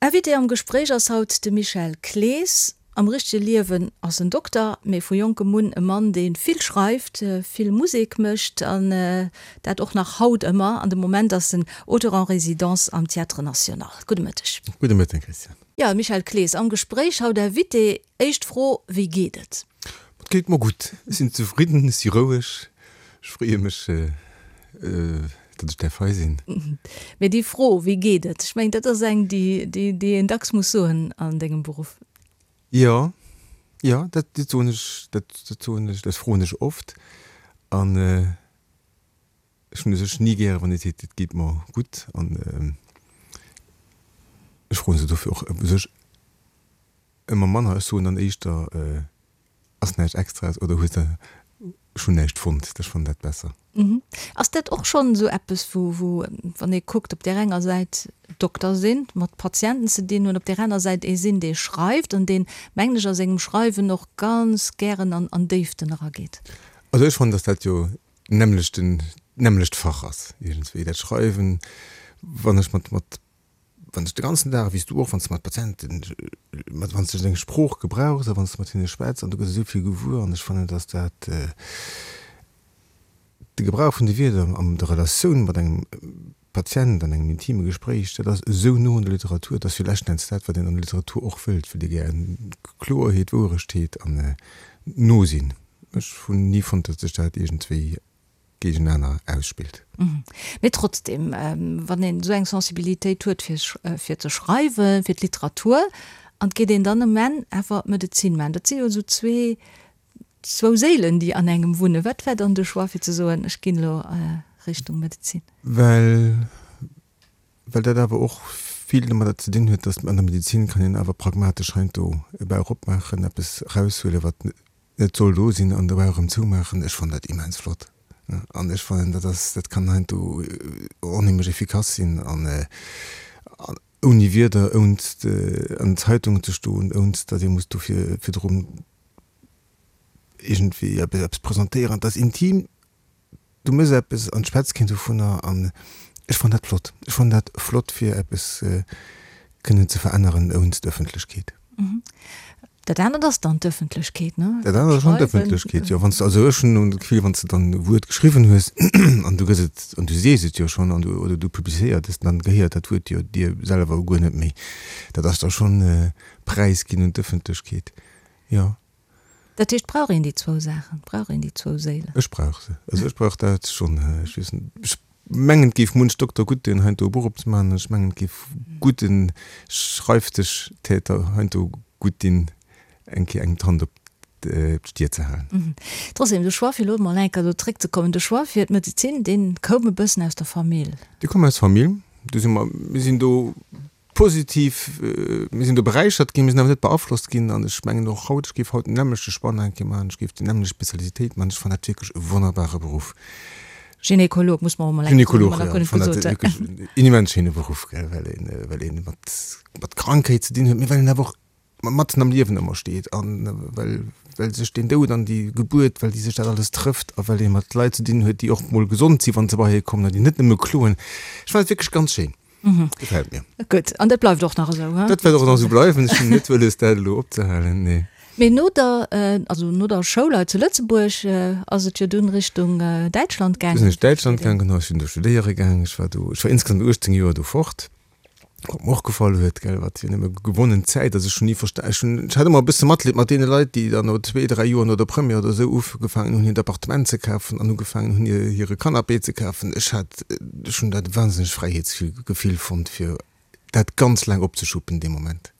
Invité am Gespréich ass haut de Michel Clees. Am richtege Liewen ass en Dokter, mee vu jonkem un e Mann, dee vill schreift, vill Musek mécht an dat och nach haut ëmmer. An de Moment ass en Auteur en résidence am Théâtre National. Gudde Mëtteg. Gudde Mëtten, Christiane. Jo, Michel Clees am Gespréich haut Invité. Éischt Fro, Wéi geet et? Et geet mer gutt. Ech sinn zefridden, ech si roueg. Ech freeë mech, datt ech däerf hei sinn. Mee déi Fro, Wéi geet et? Ech mengen, dat ass eng, déi, déi een dacks muss soen an dengem Beruff. Jo, jo, dat soen ech, dat soen ech, dat froen ech oft. An ech hunn u sech ni gäre wann ee seet, et geet mer gutt. An ech froen se dofir och u sech ëmmer manner. Ech soen dann éischter, Ass näischt Extraes oder hues de ech hunn näischt fonnt. Ech fannen dat besser. Ass dat och schonn esou eppes, wou, wou, wann ee kuckt, op där enger Säit Dokter sinn, mat Patienten ze dinn hunn, op där aner Säit ee sinn, dee schreift an deen, mengen ech, a sengem Schreiwen och ganz gären an, an Déiften erageet? Also ech fannen, datt dat jo d'nämmlechten, d'nämmlecht Fach ass iergendswéi, dat Schreiwen. Wann ech mat, mat Wann s de ganzen Dag, wéi s du och, wann s de mat Patienten, mat, wann s de deng Sprooch gebrauchs a wann s de mat hinne schwätz an du gëss esou vill gewuer an ech fannen, dass dat de Gebrauch vun de Wierder an der Relatioun mat engem Patient an engem intime Gespréich, dat ass esou no un der Literatur, dat ass jo leschten Enns dat, wat een an der Literatur och wëllt, wëllt ee gär Kloerheet, Wouerechtheet an no sinn. Ech hunn ni fonnt, datt sech dat iergendwéi géigenaner ausspillt. Mee trotzdem, wann een esou eng Sensibilitéit huet fir fir ze schreiwen, fir d'Literatur, an et geet een dann um Enn awer Medezin maachen, dat si jo esou zwee, zwou Séilen, déi an engem wunnen. Wat war dann de Choix fir ze soen, ech ginn elo Richtung Medezin? Well, well dat awer och vill domadder ze dinn huet, datt an der Medezin kann een awer pragmatesch heiansdo e Bauch opmaachen, eppes eraushuelen, wat Et soll do sinn an dobäi erëm zoumaachen. Ech fannen dat immens flott an ech fannen dat ass, dat kann heiansdo onheemlech efficace sinn an ouni Wierder, ouns an den Zeitungen ze stoen, ouns datt ee muss dofir virdrun iergendwéi eppes presentéieren. Et ass intim. Du méchs eppes an d'schwätz keen dovunner an ech fannen dat flott. Ech fannen dat flott fir eppes kënnen ze veränneren ounst Ëffentlechkeet. Dat anert ass dann d'Ëffentlechkeet, ne? Dat anert ass schonn d'Ëffentlechkeet, jo. Wann s de, also ech hunn dat Gefill, wann s de dann e Wuert geschriwwen hues an du gëss et an du sees et jo schonn an du oder du publizéiert es, dann gehéiert dat Wuert jo dir selwer guer net méi. Dat ass da schonn präisginn un d'Ëffentlechkeet, jo. Dat heescht, brauch een déi zwou Saachen, brauch een déi zwou Séilen? Ech brauch se. Also ech brauch dat schonn. Ech weess net, ech mengen, et géif munch Dokter gutt doen, heiansdo e Buch opzemaachen. Ech mengen, et géif gudde Schreifdëschtäter heiansdo gutt dinn, eng Kéier engem d'Hand op d'Stier ze halen. Trotzdem, de Choix, fir elo emol eng Kéier do zréckzekommen, de Choix fir d'Medezin, dee koum e bëssen aus der Famill. Dee koum aus Famill. Do si mer, mir sinn do Positiv, mir sinn do beräichert ginn, mir sinn awer net beaflosst ginn. An ech mengen och haut, ech géif haut den nämmlechte Spann eng Kéier maachen, ech géif déi nämmlecht Spezialitéit maachen. Ech fannen dat wierklech e wonnerbare Beruff. Gynekolog, muss mer och emol eng Kéier soen, hu mer nach guer net gesot. Gynekolog, jo, ech fannen dat wierklech en immens schéine Beruff, gell, well een, well een mat, mat Krankheet ze dinn huet, mee well een awer och matzen am Liewen ëmmer steet an well, well sech den Doud an déi Gebuert, well déi sech dat alles trëfft a well ee mat Leit ze dinn huet, déi och mol gesond sinn, wa se bei hie kommen an déi net nëmme kloen. Ech fannen dat wierklech ganz schéin. Gefält mir. Gutt, an dat bleift och nach esou, he? Dat wäert och nach esou bleiwen. Ech hunn net wëlles, dat elo opzehalen, nee. Mee no der, also no der Schoul hei zu Lëtzebuerg ass et jo dunn Richtung Däitschland gaangen. Du sinn ech Däitschland gaangen, genau. Ech sinn do studéiere gaangen. Ech war do, ech war insgesamt 18 Joer do fort. Wat mer och gefall huet, gell, wat jo nëmme gewonnen Zäit ass. Ech hunn ni versta, ech hunn, ech hat ëmmer e bësse Matleed mat deene Leit, déi dann no zwee, dräi Joer no der Première oder esou ugefaangen hunn, hiert Appartement ze kafen an ugefaangen hunn, hir, hire Canapé ze kafen. Ech hat, ech hunn dat e wahnsinnegt Fräiheetsgefill fonnt, fir dat ganz laang opzeschuppen dee Moment.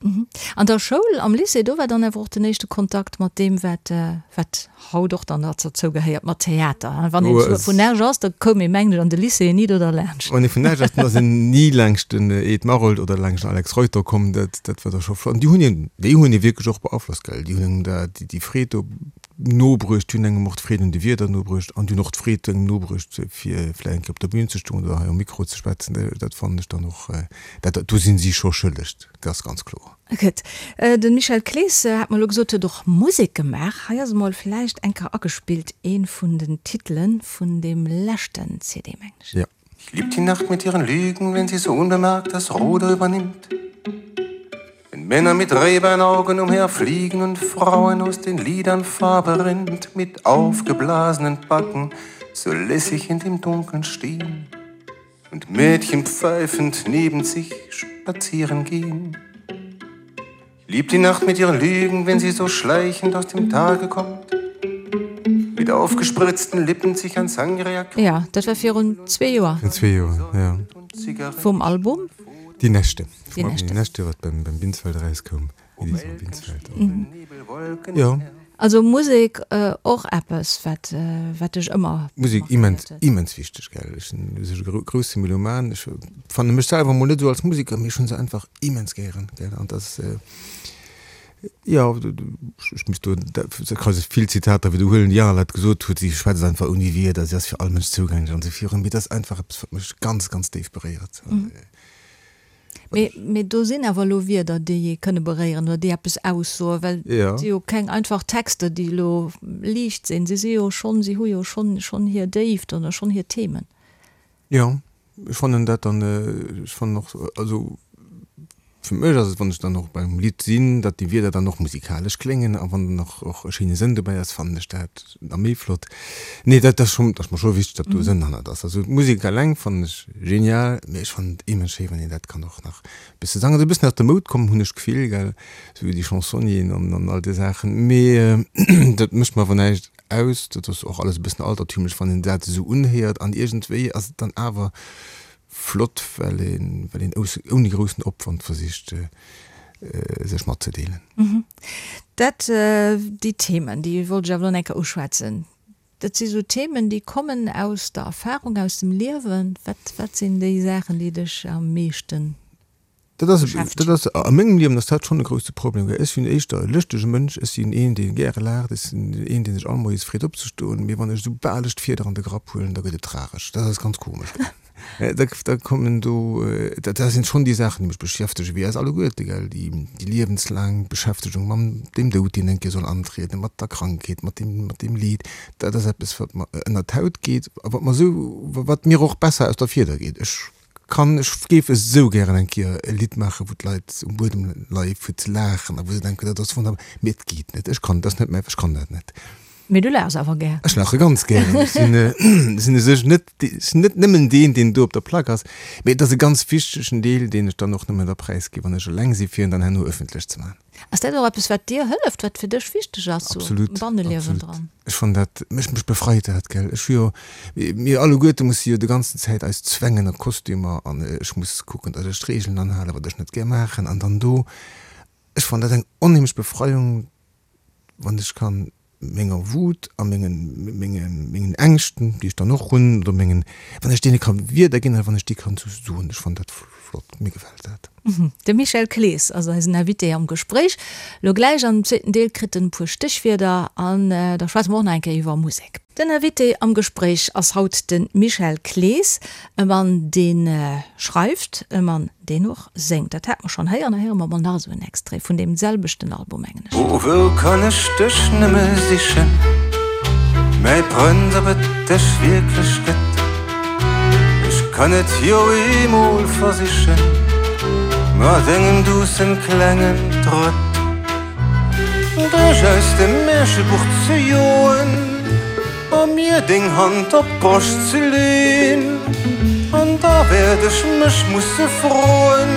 An der Schoul, am Lycée, do war dann awer och den éischte Kontakt mat deem, wat, wat haut och dann derzou gehéiert, mat Theater. Wann een vun Esch ass, da koum ee mengen ech an de Lycée ni do derlaanscht. Wann ee vun Esch ass, dann ass een ni laangscht den Ed Maroldt oder laangscht den Alex Reuter komm. Dat, dat war da scho flott. An déi hunn een, déi hunn ee wierklech och beaflosst, gell. Déi hunn engem da déi Freed do nobruecht, déi hunn engem och d'Freed un de Wierder nobruecht an déi hunn och d'Freed engem nobruecht, fir vläicht eng Kéier op der Bühn ze stoen oder hei um Mikro ze schwätzen. Dat fannen ech dann och, dat, do sinn si scho schëlleg, dat ass ganz kloer. Gutt. De Michel Clees, hat mer elo gesot, huet och Musek gemaach. Hei ass emol vläicht eng Kéier agespillt ee vun den Titele vun deem leschten CD, mengen ech. Ja. Ich lieb die Nacht mit ihren Lügen, wenn sie so unbemerkt das Ruder übernimmt. Männer mit Rebenaugen umherfliegen und Frauen aus den Lidern Farbe rinnt, mit aufgeblasenen Backen so lässig in dem Dunkeln stehen und Mädchen pfeifend neben sich spazieren gehen. Lieb die Nacht mit ihren Lügen, wenn sie so schleichend aus dem Tage kommt. Mit aufgespritzten Lippen sich an Sangria. Ja, dat war virun zwee Joer. Virun zwee Joer, ja. Vum Album? Die Nächte. Die Nächte. Die Nächte, wat beim, beim Binsfeld erauskoum. Édition Binsfeld. Jo. Also Musek och eppes, wat, wat dech ëmmer. Musek immens, immens wichteg, gell. Ech sinn u sech e grousse Meloman. Ech fanne mech selwer mol net esou als Museker, mee ech hunn se einfach immens gären, gell. An dat ass, jo, ech misst do, ech ka vill Zitater widderhuelen, déi aner Leit gesot huet, si schwätzt einfach ouni Wierder, si ass fir all Mënsch zougänglech an esou virun. Mee dat ass einfach eppes, wat mech ganz, ganz déif beréiert. Mee, mee do sinn awer elo Wierder, déi ee kënne beréieren oder déi eppes aussoen, well et si jo keng einfach Texter, déi elo liicht sinn. Si si jo schonn, si hu jo schonn, schonn hir Déift oder schonn hir Themen. Jo, ech fannen dat dann, ech fannen och, also fir mech ass et, wann ech dann och beim Lidd sinn, datt déi Wierder dann och musikalesch kléngen a wann dann och och e schéine Sënn dobäi ass, fannen ech dat nach méi flott. Nee, dat ass schonn, dat ass mer scho wichteg, datt do e Sënn hannert ass. Also d'Musek eleng fannen ech genial, mee ech fannen et immens schéi, wann een dat kann och nach e bësse sangen. Ass e bëssen aus der Moud komm, hunn ech d'Gefill, gell, esou déi Chansonnieren an an all déi Saachen. Mee dat mécht mer awer näischt aus. Dat ass och alles e bëssen altertümlech, wann een dat esou unhéiert an iergendwéi ass et dann awer flott, well een, well een ouni groussen Opwand versicht, sech matzedeelen. Dat, déi Themen, déi wollt ech awer elo nach eng Kéier uschwätzen. Dat si sou Themen, déi kommen aus der Erfahrung, aus dem Liewen. Wat, wat sinn déi Saachen, déi dech am meeschten Dat ass, dat ass, a mengem Liewen ass dat schonn e grousse Problem, well ech sinn éischter e lëschtege Mënsch, ech sinn een, dee gäre laacht, ech sinn een, dee sech all Moies freet opzestoen, mee wann ech esoubal ech d'Fieder an de Grapp huelen, da gëtt et tragesch. Dat ass ganz komesch. Da, da kommen do, dat sinn schonn déi Saachen, déi mech beschäftegen, wéi eis alleguerte, gell, déi, déi liewenslaang Beschäftegung mam dem Doud, deen eng Kéier soll antrieden, mat der Krankheet, mat deem, mat deem Leed. Dat ass eppes, wat mer ënnert d'Haut geet a wat mer esou, wat mir och besser aus der Fieder geet. Ech Kann, ech géif esou gären eng Kéier e Lidd maachen, wou d'Leit um Buedem leie fir ze laachen a wou se denken, dat ass wonnerbar, mee et geet net, ech kann, dat ass net mäi, ech kann dat net. Mee du laachs awer gär. Ech laache ganz gären. Ech sinn, sinn u sech net, ech sinn net nëmmen deen, deen do op der Plack ass, mee et ass e ganz wichtegen Deel, deen ech dann och nëmmen da präisgi wann ech eleng sinn, fir en dann herno ëffentlech ze maachen. Ass dat och eppes, wat dir hëlleft, wat fir dech wichteg ass, sou am Banneliewen dran? Ech fannen dat, mech, mech befreit dat, gell. Ech hu jo, mir alleguerte musse jo de ganzen Zäit eis zwängen a Kostümer an ech muss kucken, datt ech d'Reegelen anhalen, wat ech net gär maachen an dann do, ech fannen dat eng onheemlech Befreiung, wann ech kann menger Wut a mengen, mengen, mengen Ängschten, déi ech dann och hunn, oder mengen, wann ech deene ka Wierder ginn a wann ech déi kann sou soen, ech fannen dat flott, mir gefält dat. De Michel Clees ass eisen Invité am Gespréich. Lo gläich am zweeten Deel kritt en e puer Stéchwierder an da schwätze mer och nach eng Kéier iwwer Musek. Den Invité am Gespréich ass haut de Michel Clees, e Mann dee schreift, e Mann deen och séngt. Dat hate mer schonn héieren, da héiere mer mol nach esou en Extrait vun deem selwechten Album, mengen ech. O wou kann ech dech nëmme sichen, mäi Prënz, ob et dech wierklech gëtt? Ech kann et jo eemol versichen, mat engem duussen klengen Trëtt. Dech aus dem Märchebuch ze joen a mir deng Hand op d'Broscht ze leen. An da wäert ech mech musse froen,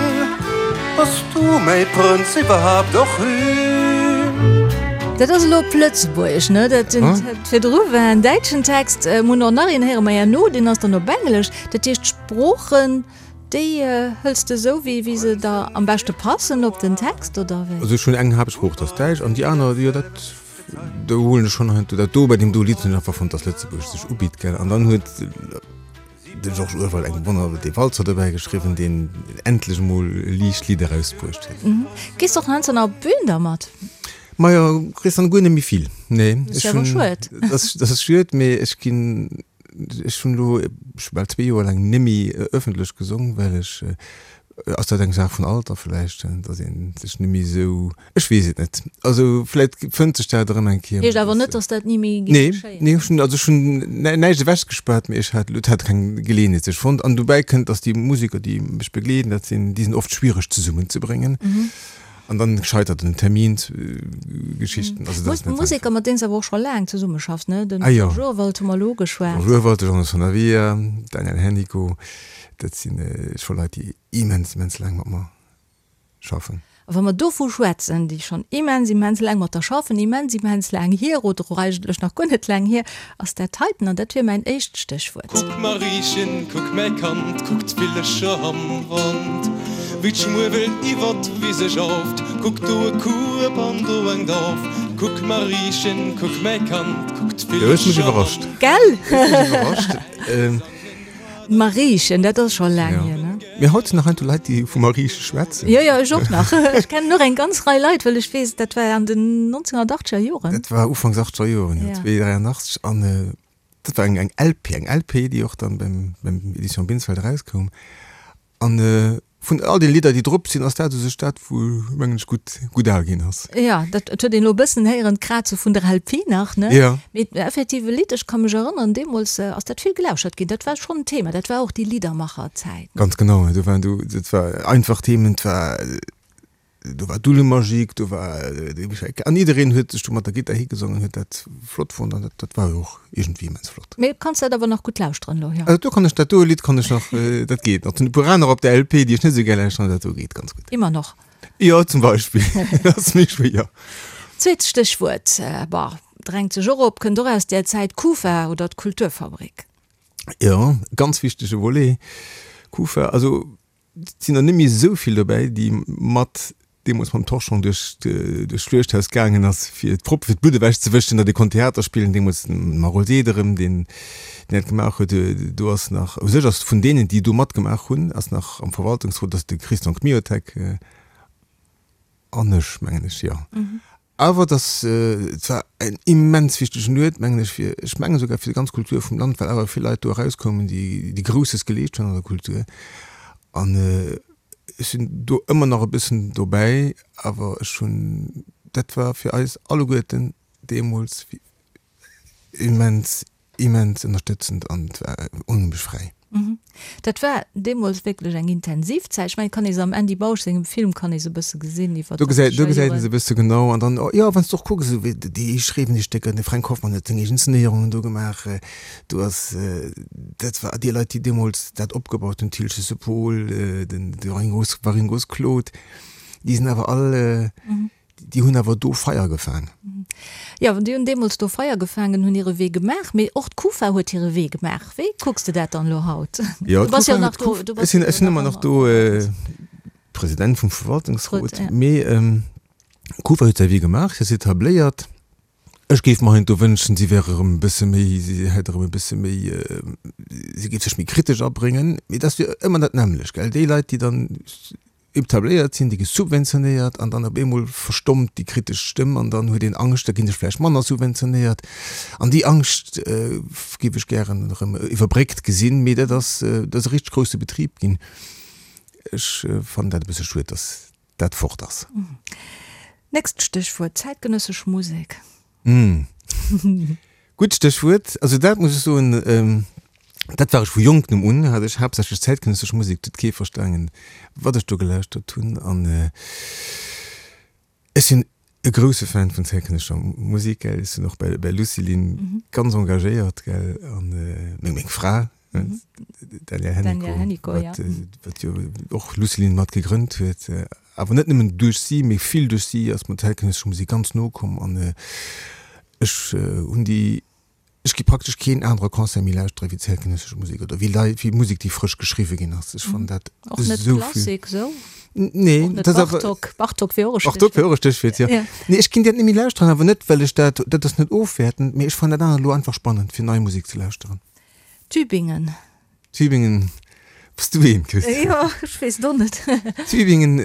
Bass du mäi Prënz iwwerhaapt och een? Dat ass elo op Lëtzebuergesch, ne? Dat virdru war en däitschen Text. Mir hunn och nach een, héiere mer herno, deen ass dann op Englesch. Dat heescht, d'Sproochen, Déi hëls de esou wéi wéi se der am beschte passen op den Text, oder wéi? Also ech hunn eng Haaptsprooch, dat ass Däitsch, an déi aner, jo dat do huelen ech schonn heiansdo dat do. Bei deem do Lidd hunn ech einfach fonnt, dass Lëtzebuergesch sech ubitt, gell. An dann huet de Georges Urwald eng wonner dee Walzer dobäi geschriwwen, deen endlech emol e liicht Lidd erausbruecht huet. Gees de och heiansdo nach op d'Bün dermat? Majo, gees dann guer net méi vill, nee. Dat ass jo awer schued. Dat ass schued, mee ech ginn Ech hunn elo scho bal zwee Joer laang nemmi ëffentlech gesong, well ech, ass dat eng Saach vun Alter vläicht, datt ee sech nemmi esou, ech weess et net. Also vläicht fënnt sech dat erëm eng Kéier. Heescht awer net, datt dat ni méi géif geschéien. Nee, ech hunn, also ech hunn näischt ewechgespaart, mee ech hat, et hat keng Geleeënheet sech fonnt. An dobäi kënnt, datt déi Museker, déi mech begleeden, dat sinn, déi sinn oft schwiereg zesummenzebréngen. An dann scheitert un den Terminsgeschichten. Also dat ass net einfach. Museker, mat deenen s de awer och scho laang zesummeschaffs, ne? Den Georges Urwald hu mer elo ugeschwat. Georges Urwald, de Jean Sanavia, Daniel Hennicot, dat si scho Leit, déi immens, immens laang mat mer schaffen. A wa mer dovu schwätzen, déi schonn immens, immens laang mat der schaffen, immens, immens laang hier, oder och eigentlech nach guer net laang hier, ass dat heiten, an dat wier mäin éischt Stéchwuert. Kuck Mariechen, kuck mäi Kand, kuck d'Villecher am Wand, wéi d'Schmuewel iwwer d'Wise jauft, kuck do e Kueb an do eng Dauf, kuck Mariechen, kuck mäi Kand, kuck d'Villecher am Wand. Gell? Hues mech iwwerrascht. D'Mariechen, dat ass scho laang hier, ne? Mee haut sinn nach heiansdo Leit, déi vu Marieche schwätzen. Jo, jo, ech och nach. Ech kennen och eng ganz Rei Leit, well ech weess, dat war an den 1980er Joren. Dat war Ufanks achtzeger Joren, jo, 82. An dat war eng, eng LP, eng LP, déi och dann beim, beim Edition Binsfeld erauskoum. An vun all den Lidder, déi drop sinn, ass dat u sech dat, wou, mengen ech, gutt, gutt al ginn ass. Jo, dat huet een elo e bëssen héieren, d'Kraze vun der LP nach, ne? Jo. Mee effektiv e Lidd, ech ka mech erënneren, deemools ass dat vill gelauschert ginn. Dat war schonn en Thema, dat war och déi Liddermacherzäit. Ganz genau, do waren du, dat war einfach Themen, et war, do war d'Ulle-Magique, do war de Michel An jiddereen huet sech do mat der Gittar higesongen, huet dat flott fonnt an dat, dat war jo och iergendwéi immens flott. Mee kanns dat awer nach gutt lauschteren elo, jo? Also do kann ech, dat do Lidd kann ech nach, dat geet nach. Et sinn e puer aner op der LP, déi ech net esou gär lauschteren, dat do geet ganz gutt. Immer noch. Jo, zum Beispill. Dat ass méi schwéier. Zweet Stéchwuert, bah, drängt sech och op, kënnt och aus där Zäit, Kufa oder d'Kulturfabrik. Jo, ganz wichtege Volet, Kufa. Also et sinn der net méi esou vill dobäi, déi mat deemools mam Torchon duerch duerch d'Schluechthaus gaangen ass, fir d'Proppe fir d'Blutt ewechzewëschen, datt ee konnt Theater spillen. Deemools den Marol Sederem, deen deen dat gemaach huet. Do ass nach, u sech ass vun deenen, déi do matgemaach hunn, ass nach am Verwaltungsrot ass de Christian Kmiotek an ech, mengen ech, jo. Awer et ass, et war en immens wichtegen Uert, mengen ech, fir, ech mengen esouguer fir déi ganz Kultur vum Land, well awer vill Leit do erauskoumen, déi, déi Grousses geleescht hunn an der Kultur. An ech sinn do ëmmer nach e bëssen dobäi, awer ech hunn, dat war fir eis alleguerten deemools immens, immens ënnerstëtzend an et war onheemlech fräi. Dat war deemools wierklech eng intensiv Zäit. Ech mengen, et kann ee se am Andy Bausch sengem Film kann ee se e bësse gesinn iwwer Do gesäit, do gesäit een se e bësse genau. An dann, jo, wann s de och kucks, esou wéi déi schreiwen déi Stécker, de Fränk Hoffmann huet seng eegen Inszenéierungen do gemaach. Do ass, dat war déi Leit, déi deemools dat opgebaut hunn, Thiltges Paul, den de Waringos, Waringos Claude, déi sinn awer all, Déi hunn awer do Feier gefaang. Jo, déi hunn deemools do Feier gefaangen, hunn hire Wee gemaach. Mee och d'Kufa huet hire Wee gemaach. Wéi kucks de dat dann elo haut? Jo, du bass jo nach do. Ech sinn, ech sinn ëmmer nach do President vum Verwaltungsrot. Mee d'Kufa huet säi Wee gemaach, si ass etabléiert. Ech géif mer heiansdo wënschen, si wär erëm e bësse méi, si hätt erëm e bësse méi, si géif sech méi kritesch abréngen. Mee dat ass jo ëmmer dat nämmlecht, gell? Déi Leit, déi dann etabléiert sinn, déi gi subventionéiert an dann op eemol verstommt déi kritesch Stëmm an dann huet een Angscht, da ginn ech vläicht manner subventionéiert. An déi Angscht géif ech gären erëm iwwerbréckt gesinn, mee dat ass, dat ass e richteg grousse Betrib ginn. Ech fannen dat e bësse schued, datt dat fort ass. Nächst Stéchwuert, zäitgenëssesch Musek. Gutt Stéchwuert. Also dat muss ech soen, dat war ech vu Jonktem un, hat ech haaptsächlech zäitgenëssesch Musek, et huet kee verstaangen, wat ech do gelauschtert hunn. An ech sinn e grousse Fan vun zäitgenëssescher Musek, gell, ech sinn och bei bei Lucilin ganz engagéiert, gell, an meng meng Fra, d'Danièle Hennicot, wat wat jo och Lucilin mat gegrënnt huet, awer net nëmmen duerch si, mee vill duerch si ass mer d'zäitgenëssesch Musek ganz no komm an Ech hunn déi, ech gi praktesch keen anere Concert méi lauschtere wéi zäitgenëssesch Musek oder wéi Lei, wéi Musek, déi frësch geschriwwe ginn ass. Ech fannen dat Och net esou vill. Klassik esou? Nee, Och net dat ass awer. Bartók? Bartók wier och e Bartók wier och e Stéchwuert, jo. Ja. Nee, ech ginn dat net méi lauschteren, awer net well ech dat, dat ass net ofwäertend, mee ech fannen dat anert elo einfach spannend, fir nei Musek ze lauschteren. Tübingen. Tübingen, bass du een, Christine? Jo, ech weess et och net. Tübingen,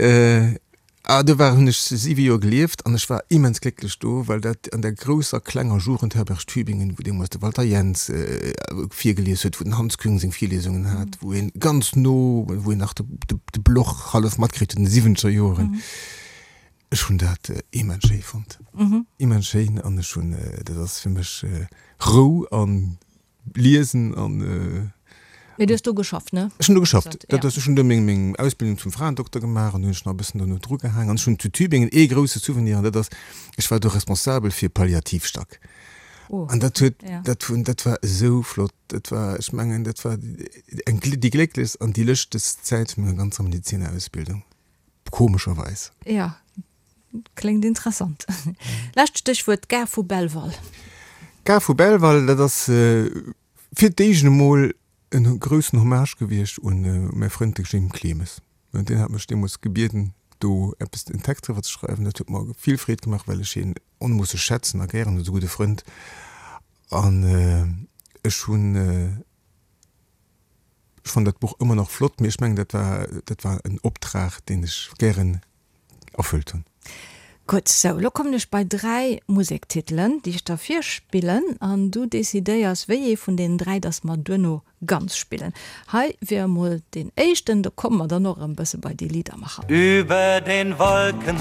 ah, do war, hunn ech siwe Joer gelieft an ech war immens glécklech do, well dat an der grousser klenger Jugendherberg Tübingen, wou deemools de Walter Jens virgelies huet, wou den Hans Küng seng Virliesungen hat, wou een ganz no, wou een nach de, de, de Bloch hallef matkritt huet an de siwwenzeger Joren. Ech hunn dat immens schéi fonnt, immens schéin an ech hunn, dat ass fir mech Rou an Liesen an. Mee du hues do geschafft, ne? Ech hunn do geschafft. Dat ass, ech hunn do meng, meng Ausbildung zum Fraendokter gemaach an do hunn ech nach e bëssen dono drugehaang. An ech hunn zu Tübingen ee grousse Souvenir an dat ass, ech war do responsabel fir Palliativstack. An dat huet, dat hunn, dat war esou flott. Dat war, ech mengen, dat war eng, déi glécklechst an déi lëschtegst Zäit vun menger ganzer Medezinerausbildung, komescherweis. Jo, kléngt interessant. Lescht Stéchwuert, d'Gare vu Belval. D'Gare vu Belval, dat ass fir d'éischt emol en groussen Hommage gewiescht un mäi Frënd de Jim Clemes. Deen hat mech deemools gebieden, do eppes, en Text driwwer ze schreiwen. Dat huet mer vill Freed gemaach, well ech hien onmoosseg schätzen a gären hunn, ass e gudde Frënd. An ech hunn, ech fannen dat Buch ëmmer nach flott, mee ech mengen, dat war, dat war en Optrag, deen ech gären erfëllt hunn. Gutt, sou, lo kommen ech bei 3 Musektitelen, déi ech der virspillen, an du decidéiers, wéi ee vun deenen 3 dass mer duerno ganz spillen. Hei wier emol deen éischten, do komme mer dann och erëm bësse bei déi Liedermacher. Über den Wolken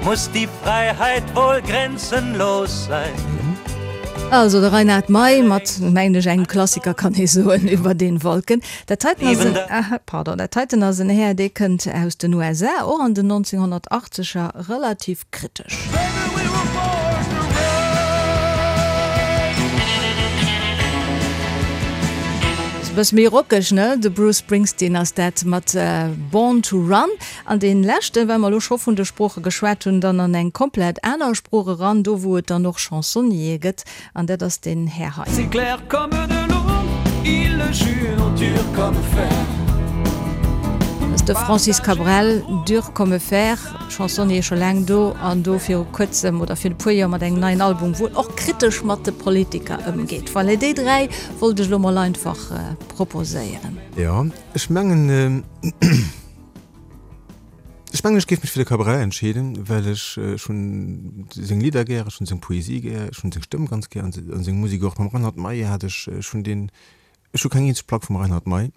muss die Freiheit wohl grenzenlos sein. Also de Reinhard Mey mat, mengen ech, engem Klassiker kann ee soen, Über den Wolken. Dat heiten ass en, pardon, dat heiten ass en Här, dee kënnt aus den USA, och an den 1980er relativ kritesch. E bësse méi rockeg, ne? De Bruce Springsteen ass dat mat Born to Run. An dee leschten, well mer elo scho vun de Sprooche geschwat hunn, dann an eng komplett aner Sprooch eran, do wou et dann och Chansonniere gëtt, An dat ass deen Här hei. C'est clair comme de l'eau, il le jure dur comme fer. Dat ass de Francis Cabrel, Dur comme fer, Chansonnier scho laang do an do viru kuerzem oder virun e puer Joer mat engem neien Album, wou en och kritesch mat de Politiker ëmgeet. Voilà, déi 3 wollt ech elo mol einfach proposéieren. Jo, ech mengen. Ech mengen, ech géif mech fir de Cabrel entscheeden, well ech, ech hunn seng Lidder gär, ech hunn seng Poesie gär, ech hunn seng Stëmm ganz gär an seng Musek och. Mam Reinhard Mey hat ech, ech hunn deen, ech hu keng eenzeg Plack vum Reinhard Mey,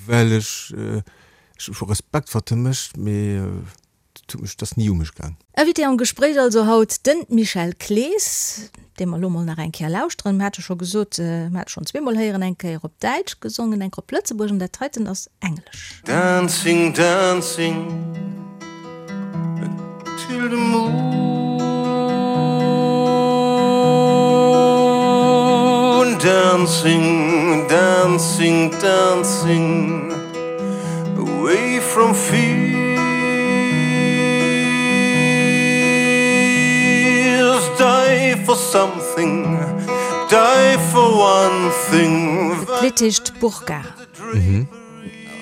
well ech, ech hu Respekt wat e mécht, mee et huet mech, et ass ni u mech gaang. Invité am Gespréich also haut de Michel Clees, dee mer elo mol nach eng Kéier lauschteren. Mir hate scho gesot, mir hate schonn zweemol héieren, eng Kéier op Däitsch gesongen, eng Kéier op Lëtzebuergesch an dat heiten ass Englesch. Dancing, dancing till the moon Dancing, dancing, dancing Away from fears Die for something, die for one thing D'Lidd heescht Burka.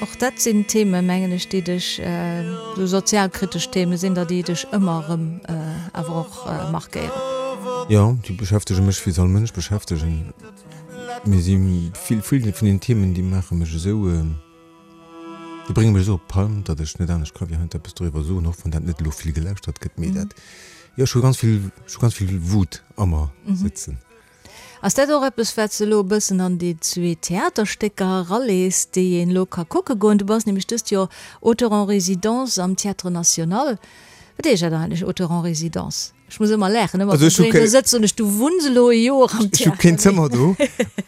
Och dat sinn Themen, mengen ech, déi dech, esou sozialkritesch Themen sinn der, déi dech ëmmer erëm awer och markéieren. Jo, déi beschäftege mech, wéi se all Mënsch beschäftegen. Mee si vill vun den Themen, déi maache mech esou, déi brénge mech esou op d'Palm, datt ech net anescht ka wéi heiansdo eppes doriwwer soen, och wann dat net elo vill gelauschtert gëtt. Mee dat, jo, ech hu ganz vill, ech hu ganz vill Wut a mer sëtzen. Ass dat och eppes, wat s de elo e bëssen an déi zwee Theaterstécker eralees, déi een elo ka kucke goen? Du bass nämlech dëst Joer Auteur en résidence am Théâtre National. Wat heescht dat eigentlech, Auteur en résidence? Ech muss ëmmer laachen, ëmmer wann ech do sëtzen an ech, du wunns elo e Joer am Ech hu keen Zëmmer do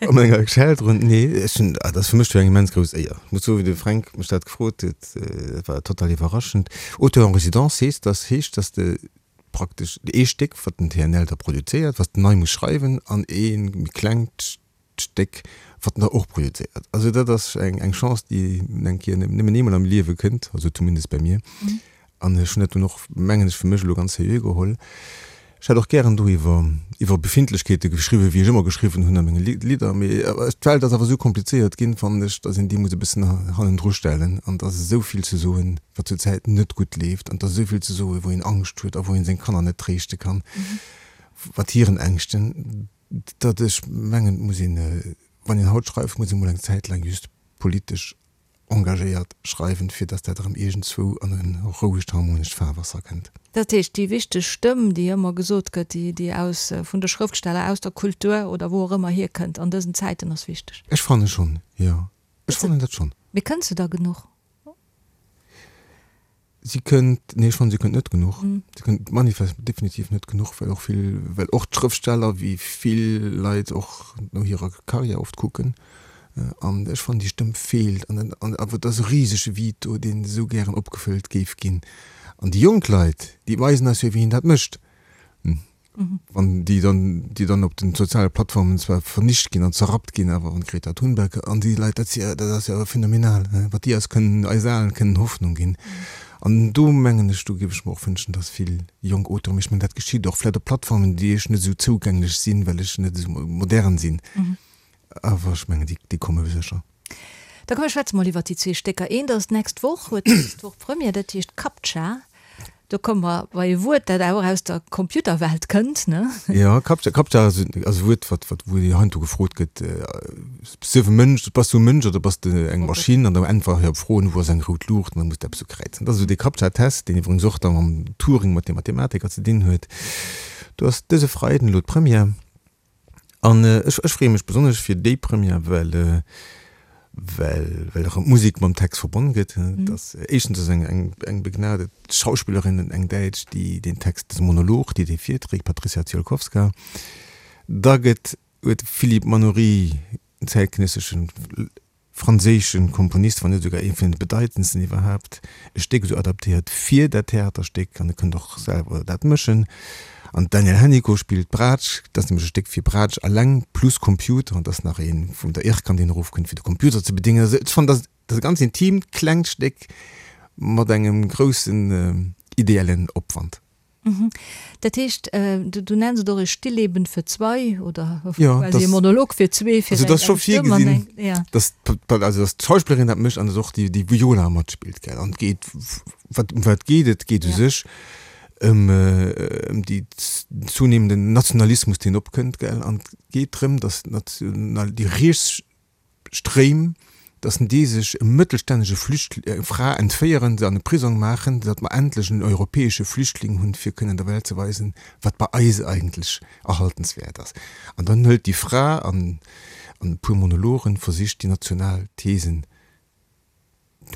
a menger Shelteren. Nee, ech hunn, dat ass fir mech jo eng immens grouss Éier. Ech muss soen, wéi de Fränk mech dat gefrot huet, dat war total iwwerraschend. Auteur en résidence heescht, dass heescht, dass de praktesch ee Stéck, wat den TNL da produzéiert, wat s de nei muss schreiwen, an ee méi klengt Stéck, wat en der och projezéiert. Also dat ass eng eng Chance, déi en eng Kéier nëmmen eemol am Liewe kënnt, also zumindest bei mir. An ech hunn dat dunn och, mengen ech, fir mech elo ganz seriö geholl. Ech hätt och gären do iwwer iwwer Befindlechkeete geschriwwen, wéi ech ëmmer geschriwwen hunn a menge Lidder, mee d'Welt ass awer esou komplizéiert ginn, fannen ech, datt een déi muss e bëssen hannendru stellen. An et ass esou vill ze soen, wat zur Zäit net gutt leeft, an et ass esou vill ze soen, wou een Angscht huet a wou een seng Kanner net tréischte kann mat hiren Ängschten. Datt ech mengen, et muss een, wann een haut schreift, muss ee mol eng Zäit laang just politesch engagéiert schreiwen, fir datt dat erëm iergendzwou an e rouegt, harmonescht Fahrwasser kënnt. Dat heescht, déi wichteg Stëmm, déi ëmmer gesot gëtt, déi, déi aus, vun de Schrëftsteller, aus der Kultur oder wou och ëmmer hierkënnt an dësen Zäiten, ass wichteg. Ech fanne schonn, jo. Ech fannen dat schonn. Mee kënnt se da genuch? Si kënnt, nee, ech fannen, si kënnt net genuch. Si kënnt manifest definitiv net genuch, well och vill, well och d'Schrëftsteller, wéi vill Leit och no hirer Karriär oft kucken. An ech fannen, déi Stëmm feelt. An an awer et ass e risege Vide do, deen esou gären opgefëllt géif ginn. An déi jonk Leit, déi weisen eis jo, wéi een dat mécht. Wann déi dann, déi dann op den soziale Plattformen zwar vernicht ginn an zerrappt ginn, awer wann d'Greta Thunberg an déi Leit, dat si, dat ass jo phänomenal, wat déi eis kënnen, eis Alen kënnen Hoffnung ginn. An do mengen ech, do géif ech mer och wënschen, datt vill jonk Auteuren, mee ech mengen dat geschitt och vläicht op Plattformen, déi ech net esou zougänglech sinn, well ech net esou modern sinn, awer ech mengen déi, déi komme sécher. Da komm mir schwätze mol iwwert déi zwee Stécker. Eent ass d'nächst Woch, huet d'nächst Woch Première, dat heescht Captcha. Do komme mer bei e Wuert, dat awer och aus der Computerwelt kënnt, ne? Jo, Captcha, Captcha ass e Wuert, wat, wat, wou heiansdo gefrot gëtt, Bass du e Mënsch, bass du e Mënsch oder bass de eng Maschinn? An da äntwere se op Froen, wou ass eng rout Luucht? An da muss de eppes ukräizen. Dat ass esou dee Captcha-Test, deen iwwregens och da mam Turing, mat dem Mathematiker ze dinn huet. Do ass dëse Freiden elo d'Première. An ech ech freeë mech besonnesch fir déi Première, well well well erëm d'Musek mam Text verbonn gëtt. Et ass éischtens ass eng eng eng begnadet Schauspillerin, eng Däitsch, déi deen Text, dëse Monolog, déi dee virträgt, Patrycja Ziolkowska. Da gëtt huet de Philippe Manoury, en zäitgenësseschen franséische Komponist, wann net esouguer ee vun de bedeitendsten iwwerhaapt, e Stéck esou adaptéiert fir dat Theaterstéck an e kënnt och selwer dat mëschen. An d'Danièle Hennicot spillt d'Braatsch, dat ass nämlech e Stéck fir Braatsch alleng plus Computer an et ass nach ee vun der Ircam, deen erofkënnt fir de Computer ze bedéngen. Also ech fannen, dat ass e ganz intimt klengt Stéck mat engem groussen ideellen Opwand. Dat heescht, du nenns et och e Stillleben für zwei oder quasi e Monolog fir zwee, fir eng Stëmm an eng, ja. Also dat ass scho virgesinn, datt d'Schauspillerin dat mécht an datt och déi Viola matspillt, gell. An et geet, wat, ëm wat geet et? Et geet u sech ëm déi zunehmenden Nationalismus, deen opkënnt, gell. An et geet drëm, datt d'National, déi riets Stréim, datt déi sech e mëttelstännege Flücht, eng Fra entféieren, se an e Prisong maachen, datt mer endlech en europäesche Flüchtling hunn, fir kënnen der Welt ze weisen, wat bei eis eigentlech erhaltenswäert ass. An dann hëlt déi Fra an an e puer Monologen versicht déi national Thesen,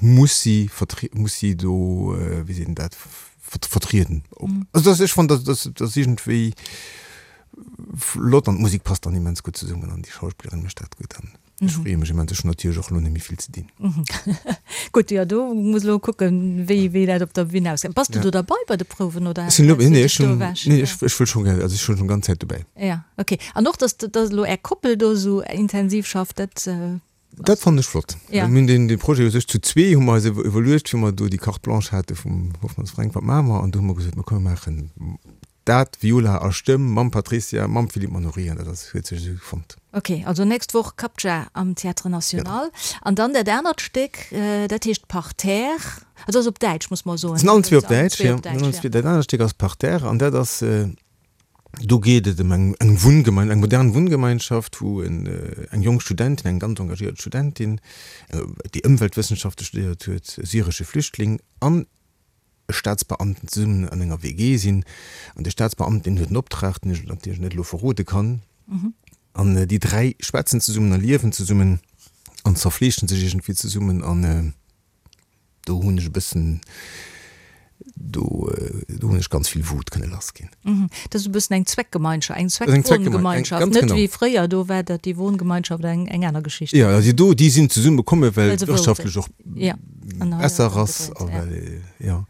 muss si vertrie, muss si do, wéi seet een dat, vertrieden. Also dat, ech fannen, dat, dat ass iergendwéi flott an d'Musek passt dann immens gutt zesummen an déi Schauspillerin mécht dat gutt an ech freeë mech immens. Ech hunn natierlech och elo net méi vill ze dinn. Gutt, jo do muss elo kucken, wéi, wéi dat op der Bühn ausgesäit. Bass du do derbei bei de Prouwen oder Ech sinn elo, nee, ech hunn, nee, ech, ech wëll schonn gär, also ech sinn schonn ganz Zäit dobäi. Ja, okay. An och, dass, dass elo Är Koppel do esou intensiv schafft, dat. Dat fannen ech flott. Mir hunn deen dee Projet u sech zu zwee hu mer eis iwwerluecht, wéi mer do déi Carte blanche hate vum Hoffmanns Fränk, wat maache mer? An do hu mer gesot, mer komm mer maachen dat, Viola a Stëmm mam Patricia, mam Philippe Manoury an dat ass huet sech esou fonnt. Ok, also nächst Woch Captcha am Théâtre National. An dann dat anert Stéck, dat heescht Parterre. Also ass op Däitsch, muss mer soen. Sinn allen zwee op Däitsch, jo. Dat anert Stéck ass Parterre an dat ass Do geet et ëm eng eng Wunngemein, eng modern Wunngemeinschaft, wou en eng jonk Studentin, eng ganz engagéiert Studentin, déi Ëmweltwëssenschafte studéiert huet, e syresche Flüchtling an e Staatsbeamten zesummen an enger WG sinn. An de Staatsbeamten, deen huet en Optrag, deen ech natierlech net elo verrode kann. An déi 3 schwätzen zesummen a liewen zesummen an zerfleeschen sech iergendwéi zesummen an. Do hunn ech e bëssen, do do hunn ech ganz vill Wut kënne lass ginn. Dat ass e bëssen eng Zweckgemeinschaft, eng Zweckwohngemeinschaft, net wéi fréier, do war dat déi Wohngemeinschaft eng eng aner Geschicht. Jo, also do, déi sinn zesumme komme well et wirtschaftlech och besser ass a well, jo,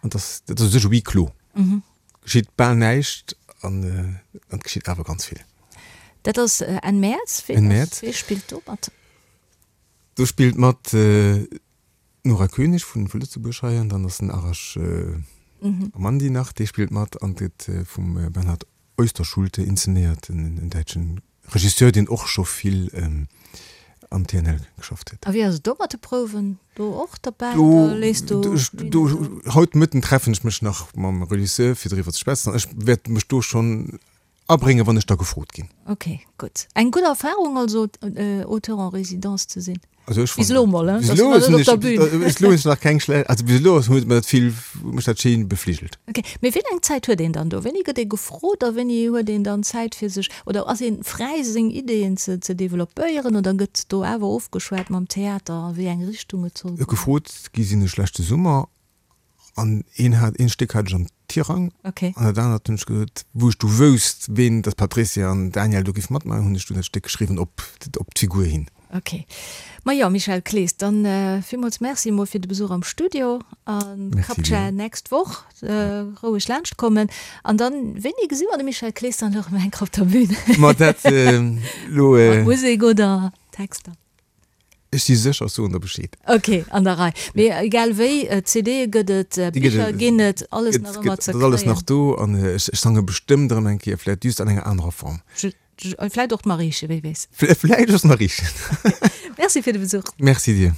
an dass dat ass u sech e Huis clos, geschitt bal näischt an et geschitt awer ganz vill. Dat ass Enn Mäerz. Enn Mäerz. Wee spillt do mat? Do spillt mat d'Nora Koenig vu Lëtzebuerg hei an dann ass den Arash Amandi nach, dee spillt mat an gëtt vum Bernhard Oesterschulte inzenéiert, en däitschen Regisseur, deen och scho vill am TNL geschafft huet. A wéi ass et do mat de Prouwen? Do och derbäi oder léiss du Do, haut Mëtten treffen ech mech nach mam Regisseur fir driwwer ze schwätzen an ech wäert mech do schonn Abréngen, wann ech da gefrot ginn. Ok, gutt. Eng gutt Erfahrung also, Auteur en résidence ze sinn? Also ech Bis elo mol, hein? Bis elo sinn ech, bis elo hunn ech nach keng schlech, also bis elo huet mer dat vill, huet mech dat schéin befligelt. Ok, mee wéi laang Zäit huet een dann do? Wéini gëtt ee gefrot a wéini huet een dann Zäit fir sech, oder ass ee fräi seng Ideeën ze ze developpéieren oder gëtt do awer ofgeschwat mam Theater a wéi eng Richtung et soll goen? Gefrot gi sinn ech leschte Summer An een hat, een Stéck hat ech am Tirang. Okay. An dat anert hunn ech gesot, wou ech du wousst, ween, datt d'Patricia an Daniel do géif matmaachen, hunn ech dunn dat Stéck geschriwwen op, op d'Figur hin. Ok. Ma jo, Michel Clees, dann villmools Merci emol fir de Besuch am Studio a Captcha nächst Woch roueg laanscht kommen. An dann, wéini gesi mer de Michel Clees dann elo erëm eng Kéier op der Bühn? Ma dat elo. Mat Musek oder Texter? Ech si sécher, ech soen der Bescheed. Ok, an der Rei. Mee egal wéi, CDe gëtt et, Bicher ginn et, alles nach ëmmer ze kréien. Et ass alles nach do an ech sange bestëmmt erëm eng Kéier, vläicht just an enger anerer Form. Vläicht och d'Mariechen, wie weess. Vläicht och d'Mariechen. Merci fir de Besuch. Merci dir.